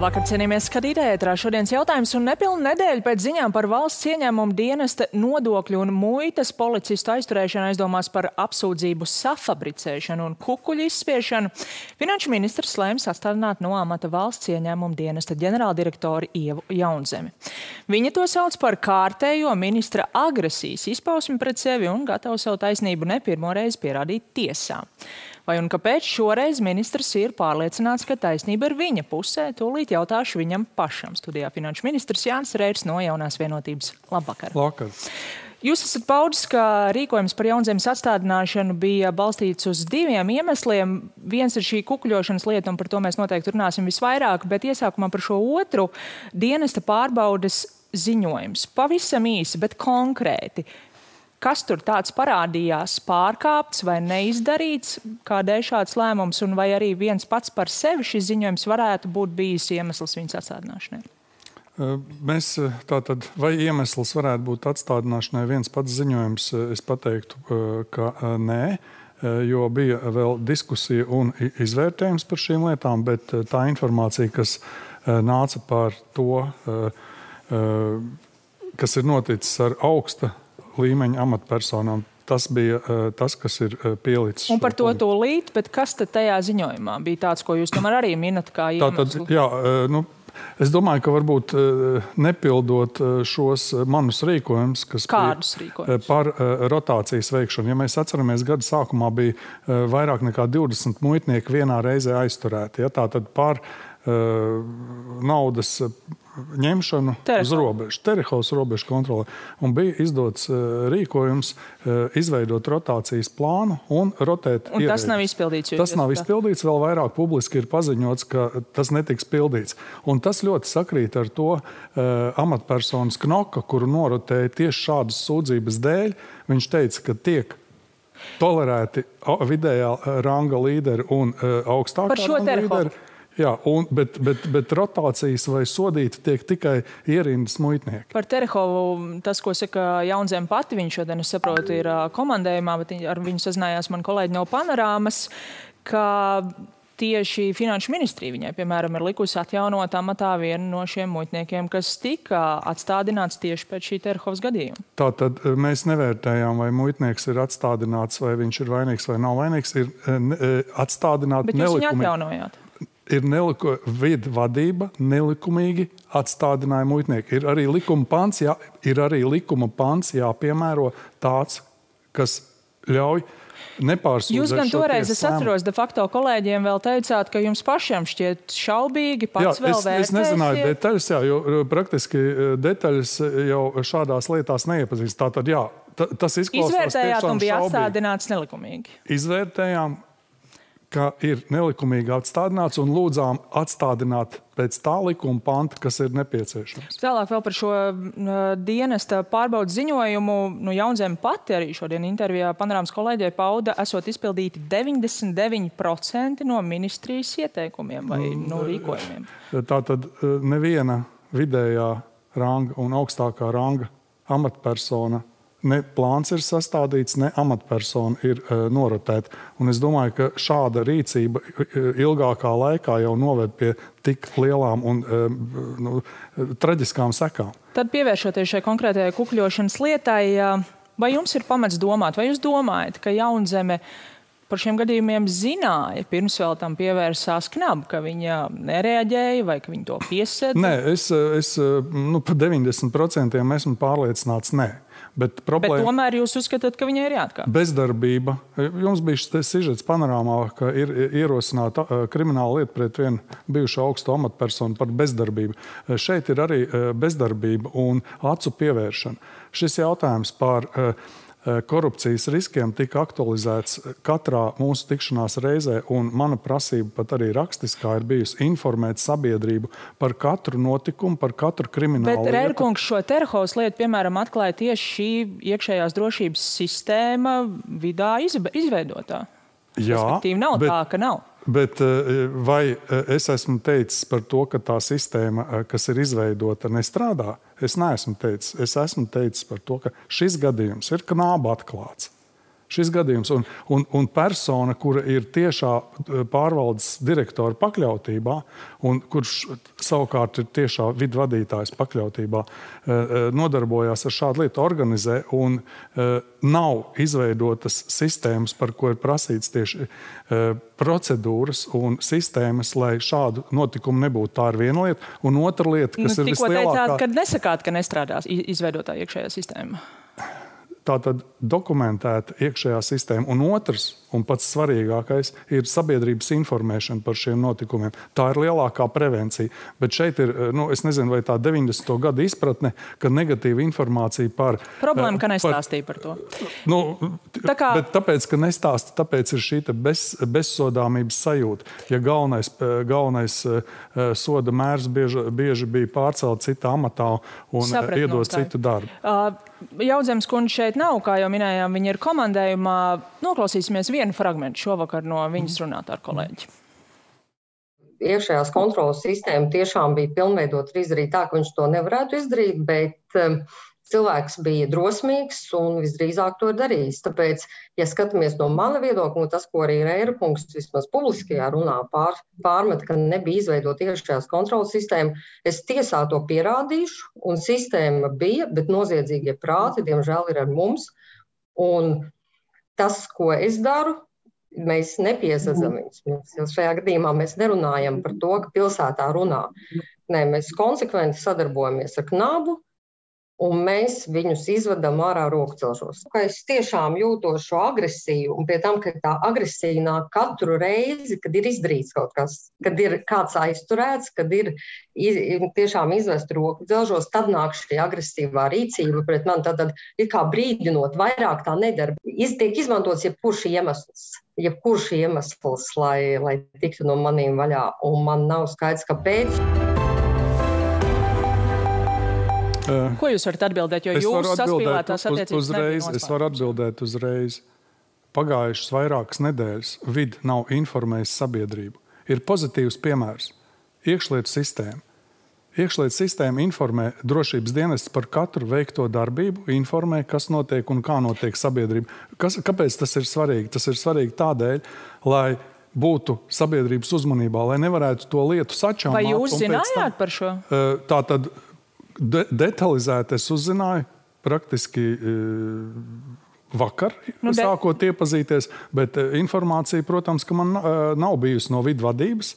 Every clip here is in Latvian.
Labvakar, cienījamies skatītāji, ētrā šodienas jautājums un nepilnu nedēļu pēc ziņām par valsts ieņēmumu dienesta nodokļu un muitas policistu aizturēšanu aizdomās par apsūdzību safabricēšanu un kukuļu izspiešanu. Finanšu ministrs lēma sastādināt no amata valsts ieņēmumu dienesta ģenerāldirektori Ievu Jaunzemi. Viņa to sauc par kārtējo ministra agresijas izpausmi pret sevi un gatava savu taisnību ne pirmo reizi pierādīt tiesā. Vai un kāpēc šoreiz ministrs ir pārliecināts, ka taisnība ir viņa pusē? Tūlīt jautāšu viņam pašam. Studijā finanšu ministrs Jānis Reirs no Jaunās vienotības. Labvakar. Labvakar. Jūs esat paudis, ka rīkojums par Jaunzemes atstādināšanu bija balstīts uz diviem iemesliem. Viens ir šī kukuļošanas lieta, un par to mēs noteikti runāsim visvairāk, bet iesākumā par šo otru dienesta pārbaudes ziņojums. Pavisam īsi, bet konkrēti. Kas tur tāds parādījās pārkāpts vai neizdarīts, kādēļ šāds lēmums, un vai arī viens pats par sevi šis ziņojums varētu būt bijis iemesls viņas atstādināšanai? Mēs tātad, vai iemesls varētu būt atstādināšanai viens pats ziņojums, es pateiktu, ka nē, jo bija vēl diskusija un izvērtējums par šīm lietām, bet tā informācija, kas nāca par to, kas ir noticis ar augsta līmeņa amatpersonām, tas bija tas, kas ir pielicis. Un par to tūlīt, bet kas tad tajā ziņojumā bija tāds, ko jūs tomēr arī minat kā iemeslu? Tātad, jā, es domāju, ka varbūt nepildot šos manus rīkojumus, kas par rotācijas veikšanu. Ja mēs atceramies, gada sākumā bija vairāk nekā 20 muitnieki vienā reizē aizturēti. Ja, tātad par naudas ņemšanu uz robežu, Terehovas robežu kontroli. Un bija izdots rīkojums izveidot rotācijas plānu un rotēt ierēģus. Un tas nav izpildīts? Tas nav izpildīts, vēl vairāk publiski ir paziņots, ka tas netiks pildīts. Un tas ļoti sakrīt ar to amatpersonas Knoka, kuru norotēja tieši šādas sūdzības dēļ. Viņš teica, ka tiek tolerēti vidējā ranga līderi un augstākā ranga līderi. Jā, bet rotācijas vai sodīti tiek tikai ierindas muitnieki. Par Terehovu, tas, ko saka Jaunzeme pati, viņš šodien, es saprotu, ir komandējumā, bet ar viņu sazinājās man kolēģi no Panorāmas, ka tieši finanšu ministrija viņai, piemēram, ir likusi atjaunot amatā vienu no šiem muitniekiem, kas tika atstādināts tieši pēc šī Terehovas gadījuma. Tātad mēs nevērtējām, vai muitnieks ir atstādināts, vai viņš ir vainīgs vai nav vainīgs, ir atstādināti nelikumīgi. Bet jūs viņu atjaunojāt? Ir vidu vadība, nelikumīgi atstādināja muitnieki. Ir arī likuma pants jāpiemēro tāds, kas ļauj nepārsūdzēt. Jūs gan toreiz, es atceros, de facto kolēģiem vēl teicāt, ka jums pašiem šķiet šaubīgi, pats vēl vērtēsiet. Es nezināju detaļas, jo praktiski detaļas jau šādās lietās neiepazīst. Tātad, jā, tas izklausās tiešām šaubīgi. Izvērtējāt un bija atstādināts nelikumīgi? Izvērtējām, ka ir nelikumīgi atstādināts un lūdzām atstādināt pēc tā likuma panta, kas ir nepieciešams. Tālāk vēl par šo dienesta pārbaudas ziņojumu. Jaunzeme pati arī šodien intervijā Panorāmas kolēģei pauda, esot izpildīti 99% no ministrijas ieteikumiem vai rīkojumiem. Tātad neviena vidējā ranga un augstākā ranga amatpersona ne plāns ir sastādīts, ne amatpersona ir norotēta. Un es domāju, ka šāda rīcība ilgākā laikā jau noved pie tik lielām un traģiskām sekām. Tad pievēršoties šai konkrētajai kukuļošanas lietai, vai jums ir pamats domāt, vai jūs domājat, ka Jaunzeme par šiem gadījumiem zināja, pirms vēl tam pievērsās knabu, ka viņa nereaģēja vai ka viņa to piesēda? Nē, es par 90% esmu pārliecināts, nē. Bet tomēr jūs uzskatāt, ka viņai ir jāatkāp? Bezdarbība. Jums bija sižets Panorāmā, ka ir ierosināta krimināla lieta pret vienu bijušu augstu amatpersonu par bezdarbību. Šeit ir arī bezdarbība un acu pievēršana. Šis jautājums par korupcijas riskiem tika aktualizēts katrā mūsu tikšanās reizē, un mana prasība pat arī rakstiskā ir bijusi informēt sabiedrību par katru notikumu, par katru kriminālu lietu. Bet Reirkungs šo Terehovas lietu, piemēram, atklāja tieši šī iekšējās drošības sistēma vidā izveidotā. Jā, respektīvi nav tā, ka nav. Bet vai es esmu teicis par to, ka tā sistēma, kas ir izveidota, nestrādā? Es neesmu teicis. Es esmu teicis par to, ka šis gadījums ir knāba atklāts. šis gadījums. Un persona, kura ir tiešā pārvaldes direktora pakļautībā, un kurš savukārt ir tiešā vidvadītājs pakļautībā, nodarbojās ar šādu lietu, organizē, un nav izveidotas sistēmas, par ko ir prasīts tieši procedūras un sistēmas, lai šādu notikumu nebūtu. Tā ir viena lieta. Un otra lieta, kas ir vislielākā... Tikko teicāt, ka nesakāt, ka nestrādās izveidotā iekšējā sistēma. Tātad dokumentēta iekšējā sistēma. Un otrs, un pats svarīgākais, ir sabiedrības informēšana par šiem notikumiem. Tā ir lielākā prevencija. Bet šeit ir, es nezinu, vai tā 90. gada izpratne, ka negatīva informācija par... Problēma, ka nestāstīja par to. Bet tāpēc, ka nestāsta, tāpēc ir šī bezsodāmības sajūta. Ja galvenais soda mērs bieži bija pārcelt citā amatā un iedot citu darbu. Jaudzemes kundze šeit nav, kā jau minējām, viņa ir komandējumā. Noklausīsimies vienu fragmentu šovakar no viņas runāt ar kolēģi. Iekšējās kontrolas sistēma tiešām bija pilnveidota izdarīt tā, ka viņš to nevarētu izdarīt, bet cilvēks bija drosmīgs un visdrīzāk to darījis. Tāpēc, ja skatāmies no mana viedokļa, tas, ko arī Reira kungs vismaz publiskajā runā pārmet, ka nebija izveidota iekšējās kontrolas sistēma, es tiesā to pierādīšu, un sistēma bija, bet noziedzīgie prāti, diemžēl, ir ar mums. Un tas, ko es daru, mēs nepiesadzam viņus. Šajā gadījumā mēs nerunājam par to, ka pilsētā runā. Nē, mēs konsekventi sadarbojamies ar Knabu, un mēs viņus izvedam ārā rokcelšos. Es tiešām jūtos šo agresiju, un pie tam, ka tā agresija nāk katru reizi, kad ir izdarīts kaut kas, kad ir kāds aizturēts, kad ir tiešām izvest rokcelšos, tad nāk šī agresīvā rīcība pret mani, tad ir kā brīdinot, vairāk tā nedara. Tiek izmantots jebkurš iemesls, lai tiktu no maniem vaļā, un man nav skaidrs, kāpēc. Ko jūs varat atbildēt, jo jūs saspīlētās attiecības nebija nospēlētas? Es varu atbildēt uzreiz. Pagājušas vairākas nedēļas vidi nav informējis sabiedrību. Ir pozitīvs piemērs. Iekšlietu sistēma. Iekšlietu sistēma informē drošības dienestus par katru veikto darbību, informē, kas notiek un kā notiek sabiedrība. Kāpēc tas ir svarīgi? Tas ir svarīgi tādēļ, lai būtu sabiedrības uzmanībā, lai nevarētu to lietu sačāmāt. Vai jūs zinājāt par šo? Tātad detalizēti es uzzināju praktiski vakar, sākot iepazīties, bet informācija, protams, ka man nav bijusi no vidvadības.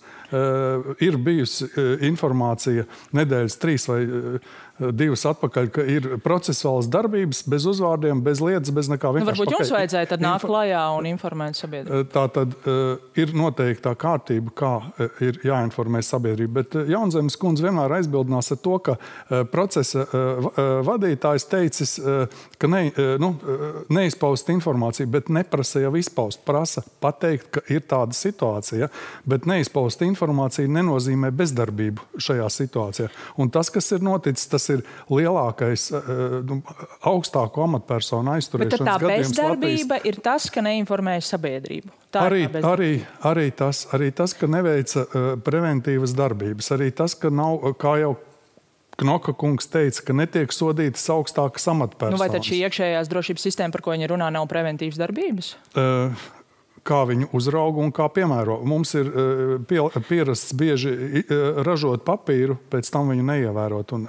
Ir bijusi informācija nedēļas 3 vai 2 atpakaļ, ka ir procesuālas darbības bez uzvārdiem, bez lietas, bez nekā. Varbūt jums vajadzēja tad nākt klajā un informēt sabiedrību. Tā tad ir noteikta kārtība, kā ir jāinformē sabiedrība. Bet Jaunzemes kundze vienmēr aizbildinās ar to, ka procesa vadītājs teicis, ka neizpaust informāciju, bet neprasa jau izpaust. Prasa pateikt, ka ir tāda situācija, bet neizpaust informācija nenozīmē bezdarbību šajā situācijā. Un tas, kas ir noticis, tas ir lielākais augstāko amatpersonu aizturēšanas gadījums Latvijas. Bet tā bezdarbība ir tas, ka neinformēja sabiedrību. Arī tas, ka neveica preventīvas darbības. Arī tas, ka nav, kā jau Knoka kungs teica, ka netiek sodītas augstākas amatpersonas. Vai tad šī iekšējās drošības sistēma, par ko viņi runā, nav preventīvas darbības? Kā viņu uzrauga un kā piemēro. Mums ir pierasts bieži ražot papīru, pēc tam viņu neievērot un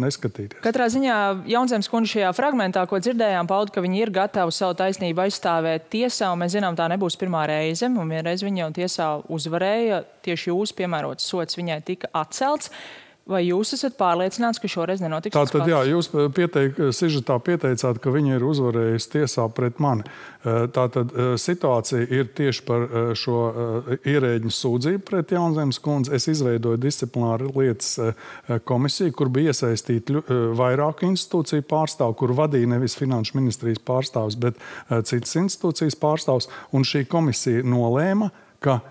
neskatīties. Katrā ziņā Jaunzemes kundze šajā fragmentā, ko dzirdējām, pauda, ka viņi ir gatavi savu taisnību aizstāvēt tiesā, un mēs zinām, tā nebūs pirmā reize, un vienreiz viņa jau tiesā uzvarēja, tieši jūs piemērots sots viņai tika atcelts. Vai jūs esat pārliecināts, ka šoreiz nenotiks? Tātad, jā, jūs sižetā pieteicāt, ka viņa ir uzvarējusi tiesā pret mani. Tātad situācija ir tieši par šo ierēģņu sūdzību pret Jaunzemes kundzi. Es izveidoju disciplināru lietas komisiju, kur bija iesaistīti vairāku institūciju pārstāvu, kur vadīja nevis Finanšu ministrijas pārstāvs, bet citas institūcijas pārstāvs. Un šī komisija nolēma, ka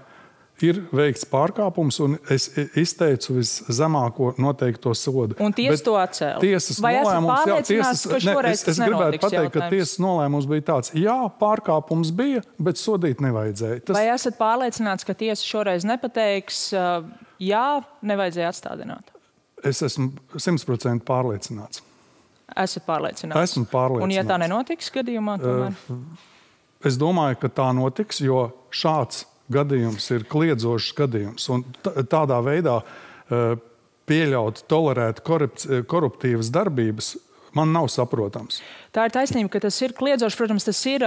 ir veikts pārkāpums, un es izteicu viszemāko noteikto sodu. Un tiesa to atcēla? Vai esat pārliecināts, ka šoreiz tas nenotiks? Es gribētu pateikt, ka tiesas nolēmums bija tāds, jā, pārkāpums bija, bet sodīt nevajadzēja. Vai esat pārliecināts, ka tiesa šoreiz nepateiks, jā, nevajadzēja atstādināt? Es esmu 100% pārliecināts. Esat pārliecināts? Esmu pārliecināts. Un ja tā nenotiks gadījumā, tomēr? Es domāju, ka tā notiks, jo šāds gadījums ir kliedzošs gadījums. Un tādā veidā pieļaut, tolerēt koruptīvas darbības man nav saprotams. Tā ir taisnība, ka tas ir kliedzošs. Protams, tas ir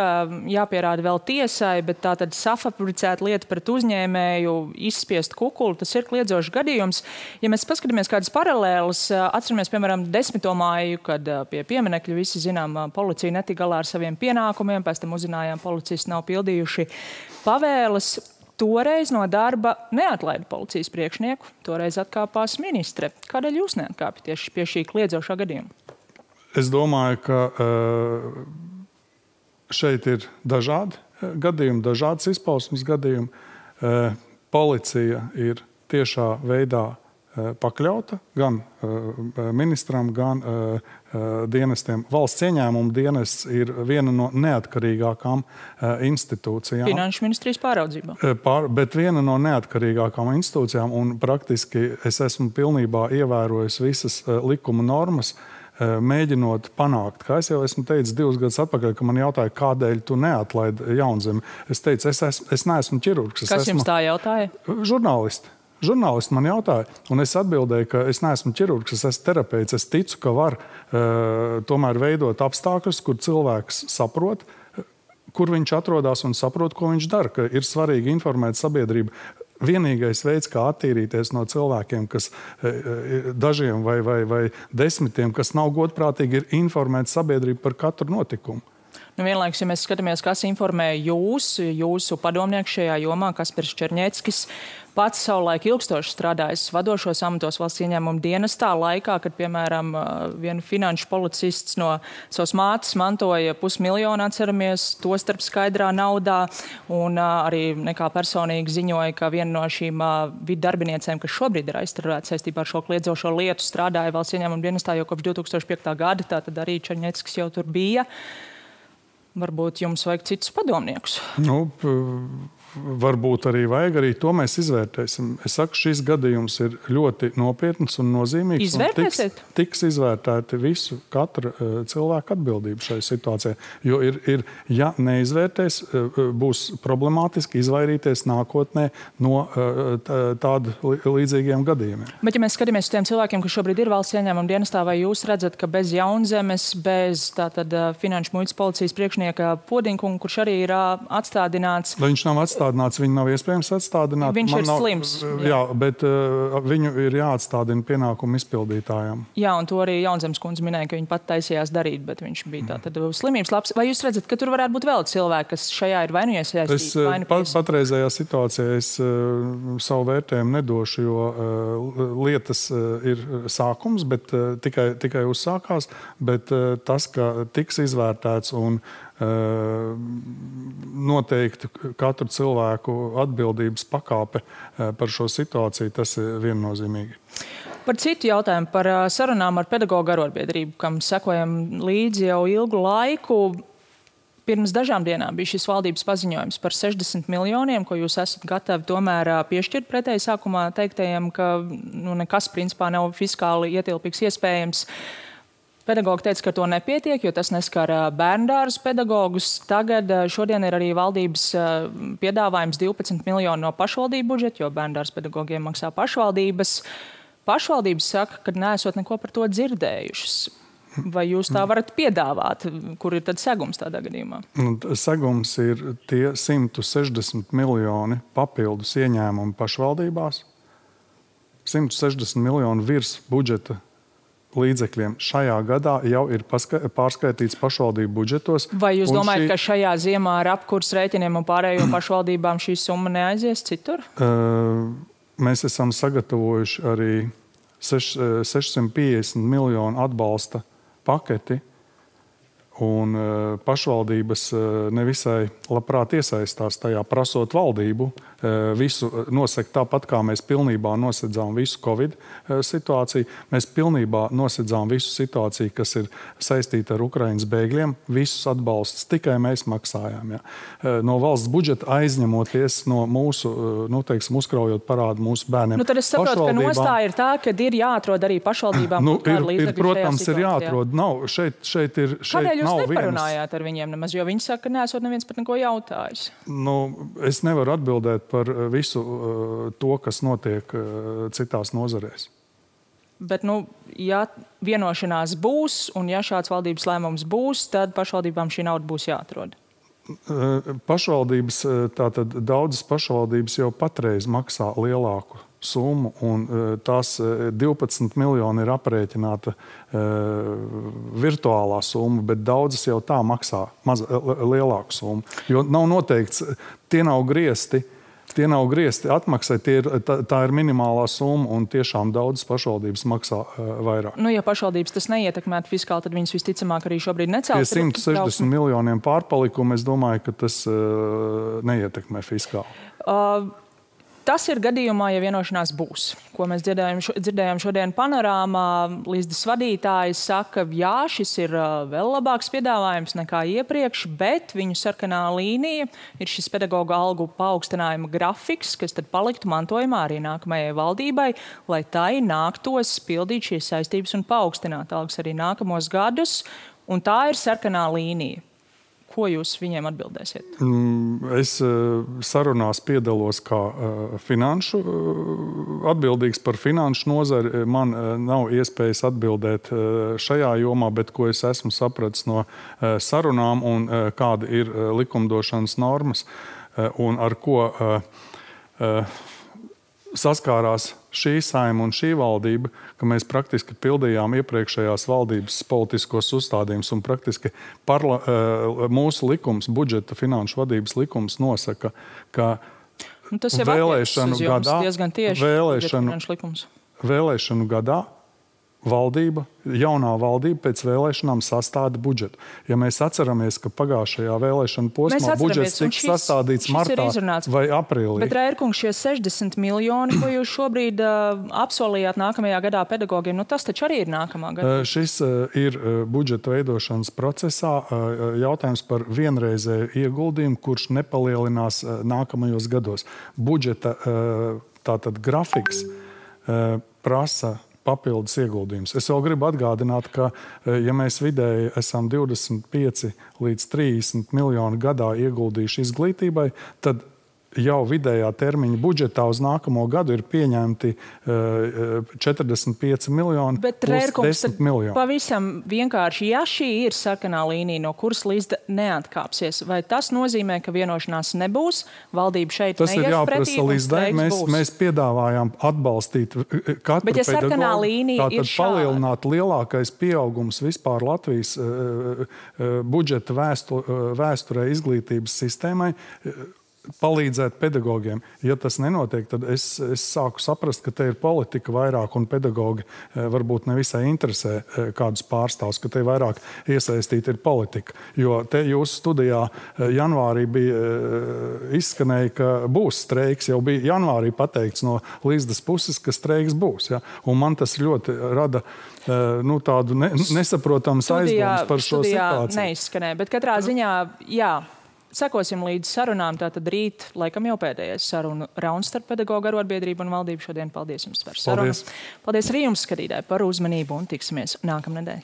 jāpierāda vēl tiesai, bet tā tad safabricēta lieta pret uzņēmēju, izspiest kukuli, tas ir kliedzošs gadījums. Ja mēs paskatāmies kādas paralēlas, atceramies, piemēram, 10. māju, kad pie pieminekļa visi zinām, policija netika galā ar saviem pienākumiem, pēc tam uzzinājām, policisti nav pildījuši pavēles. Toreiz no darba neatlaida policijas priekšnieku, toreiz atkāpās ministre. Kādēļ jūs neatkāpjat tieši pie šī kliedzošā gadījuma? Es domāju, ka šeit ir dažādi gadījumi, dažādas izpausmes gadījumi. Policija ir tiešā veidā pakļauta gan ministram, gan dienestiem. Valsts ieņēmuma dienests ir viena no neatkarīgākām institūcijām. Finanšu ministrijas pāraudzībā. Bet viena no neatkarīgākām institūcijām, un praktiski es esmu pilnībā ievērojis visas likuma normas, mēģinot panākt. Kā es jau esmu teicis 2 gadus atpakaļ, ka man jautāja, kādēļ tu neatlaidi Jaunzemi. Es teicu, es neesmu ķirurgs. Kas jums tā jautāja? Žurnālisti. Žurnālisti man jautāja, un es atbildēju, ka es neesmu ķirurgs, es esmu terapeits. Es ticu, ka var tomēr veidot apstākļus, kur cilvēks saprot, kur viņš atrodas un saprot, ko viņš dara, ka ir svarīgi informēt sabiedrību. Vienīgais veids, kā attīrīties no cilvēkiem, kas dažiem vai 10, kas nav godprātīgi, ir informēt sabiedrību par katru notikumu. Vienlaikus, ja mēs skatāmies, kas informē jūsu padomnieku šajā jomā, Kaspars Černieckis, pats savulaik ilgstoši strādājis vadošos amatos valsts ieņēmuma dienestā laikā, kad, piemēram, viena finanšu policists no savas mātes mantoja 500 000, atceramies, to starp skaidrā naudā, un arī nekā personīgi ziņoja, ka viena no šīm vidu darbiniecēm, kas šobrīd ir aizturēta saistībā ar šo kliedzošo lietu, strādāja valsts ieņēmuma dienestā jau kopš 2005. gada, tātad arī Černieckis jau tur bija. Varbūt jums vajag citus padomniekus? Varbūt arī vajag, arī to mēs izvērtēsim. Es saku, šis gadījums ir ļoti nopietns un nozīmīgs. Izvērtēsiet? Tiks izvērtēti visu, katra cilvēka atbildība šai situācijai. Jo ja neizvērtēs, būs problemātiski izvairīties nākotnē no tādu līdzīgiem gadījumiem. Bet ja mēs skatāmies uz tiem cilvēkiem, kas šobrīd ir valsts ieņēmuma dienestā, vai jūs redzat, ka bez Jaunzemes, bez tātad finanšu muitas policijas priekšnieka Podinkunga, kurš arī ir atstādināts? Vai viņš nav atstādināts? Viņu nav iespējams atstādināt. Viņš ir slims. Jā, bet viņu ir jāatstādina pienākumu izpildītājām. Jā, un to arī Jaunzemes kundze minēja, ka viņa pat taisījās darīt, bet viņš bija tātad slimības labs. Vai jūs redzat, ka tur varētu būt vēl cilvēki, kas šajā ir vai nu iesaistīti? Patreizējā situācijā es savu vērtējumu nedošu, jo lietas ir sākums, bet tikai uzsākās, bet tas, ka tiks izvērtēts un noteikti katru cilvēku atbildības pakāpe par šo situāciju, tas ir viennozīmīgi. Par citu jautājumu, par sarunām ar pedagoģu arotbiedrību, kam sekojam līdzi jau ilgu laiku. Pirms dažām dienām bija šis valdības paziņojums par 60 miljoniem, ko jūs esat gatavi tomēr piešķirt pretēji sākumā teiktajiem, ka nekas principā nav fiskāli ietilpīgs iespējams. Pedagogi teica, ka to nepietiek, jo tas neskar bērndārzu pedagogus. Tagad šodien ir arī valdības piedāvājums 12 miljoni no pašvaldību budžeta, jo bērndārzu pedagogiem maksā pašvaldības. Pašvaldības saka, ka neesot neko par to dzirdējušas. Vai jūs tā varat piedāvāt? Kur ir tad segums tādā gadījumā? Segums ir tie 160 miljoni papildus ieņēmumi pašvaldībās. 160 miljoni virs budžeta līdzekļiem šajā gadā jau ir pārskaitīts pašvaldību budžetos. Vai jūs domājat, ka šajā ziemā ar apkurs rēķiniem un pārējo pašvaldībām šī summa neaizies citur? Mēs esam sagatavojuši arī 650 miljonu atbalsta paketi, un pašvaldības nevisai labprāt iesaistās tajā, prasot valdību visu nosegt tāpat, kā mēs pilnībā nosedzām visu Covid situāciju. Mēs pilnībā nosedzām visu situāciju, kas ir saistīta ar Ukrainas bēgļiem. Visus atbalstus tikai mēs maksājām. Ja. No valsts budžeta aizņemoties no mūsu, uzkraujot parādu mūsu bērniem. Tad es saprotu, ka nostāja ir tā, ka ir jāatrod arī pašvaldībām. Protams, ir jāatrod. Nav, šeit ir... Kādēļ nav neparunājāt ar viņiem nemaz, jo viņi saka, ka neesot neviens par neko jautājis. Es nevaru atbildēt par visu to, kas notiek citās nozarēs. Bet, ja vienošanās būs un ja šāds valdības lēmums būs, tad pašvaldībām šī nauda būs jāatrod. Pašvaldības, tātad daudzas pašvaldības jau patreiz maksā lielāku summu, un tās 12 miljoni ir aprēķināta virtuālā summa, bet daudzas jau tā maksā lielāku summu. Jo nav noteikts, tie nav griezti atmaksai, tā ir minimālā summa, un tiešām daudzas pašvaldības maksā vairāk. Ja pašvaldības tas neietekmētu fiskāli, tad viņas visticamāk arī šobrīd necels. Pie 160 miljoniem pārpalikumu, es domāju, ka tas neietekmē fiskāli. Tas ir gadījumā, ja vienošanās būs. Ko mēs dzirdējām šodien panorāmā, Līsdas vadītājs saka, jā, šis ir vēl labāks piedāvājums nekā iepriekš, bet viņu sarkanā līnija ir šis pedagoģa algu paaugstinājuma grafiks, kas tad paliktu mantojumā arī nākamajai valdībai, lai tai nāktos pildīt šīs saistības un paaugstināt algas arī nākamos gadus, un tā ir sarkanā līnija. Ko jūs viņiem atbildēsiet? Es sarunās piedalos kā atbildīgs par finanšu nozari. Man nav iespējas atbildēt šajā jomā, bet ko es esmu sapratis no sarunām un kāda ir likumdošanas normas un ar ko saskārās šī saima un šī valdība, ka mēs praktiski pildījām iepriekšējās valdības politiskos uzstādījumus un praktiski mūsu likums, budžeta finanšu vadības likums nosaka, ka tas jau vēlēšanu gadā, diezgan tieši vēlēšanu gadā jaunā valdība pēc vēlēšanām sastāda budžetu. Ja mēs atceramies, ka pagājušajā vēlēšanu posmā budžets tika sastādīts martā vai aprīlī. Bet, Rērkungs, šie 60 miljoni, ko jūs šobrīd apsolījāt nākamajā gadā pedagogiem, tas taču arī ir nākamā gada. Šis ir budžeta veidošanas procesā jautājums par vienreizēju ieguldījumu, kurš nepalielinās nākamajos gados. Budžeta tātad grafiks prasa papildus ieguldījums. Es vēl gribu atgādināt, ka, ja mēs vidēji esam 25 līdz 30 miljoni gadā ieguldījuši izglītībai, tad jau vidējā termiņa budžetā uz nākamo gadu ir pieņemti 45 miljoni plus 10 miljoni. Pavisam vienkārši, ja šī ir sarkanā līnija, no kuras Līsda neatkāpsies, vai tas nozīmē, ka vienošanās nebūs, valdība šeit tas neies pretī un streiks būs? Mēs piedāvājām atbalstīt katru bet, ja sarkanā līnija ir šāda, palielināt lielākais pieaugums vispār Latvijas budžeta vēsturē izglītības sistēmai, palīdzēt pedagogiem. Ja tas nenotiek, tad es sāku saprast, ka te ir politika vairāk un pedagogi varbūt nevisai interesē kādus pārstāvus, ka te vairāk iesaistīta ir politika. Jo te jūsu studijā janvārī bija izskanēja, ka būs streiks, jau bija janvārī pateikts no Līsdas puses, ka streiks būs. Ja? Un man tas ļoti rada tādu nesaprotamas aizdomas par šo situāciju. Neizskanēja, bet katrā ziņā, jā. Sekosim līdz sarunām, tātad rīt, laikam jau pēdējais sarunu rauns starp pedagoģu arotbiedrību un valdību šodien. Paldies jums par sarunu. Paldies arī jums, skatītāji, par uzmanību un tiksimies nākamnedēļ.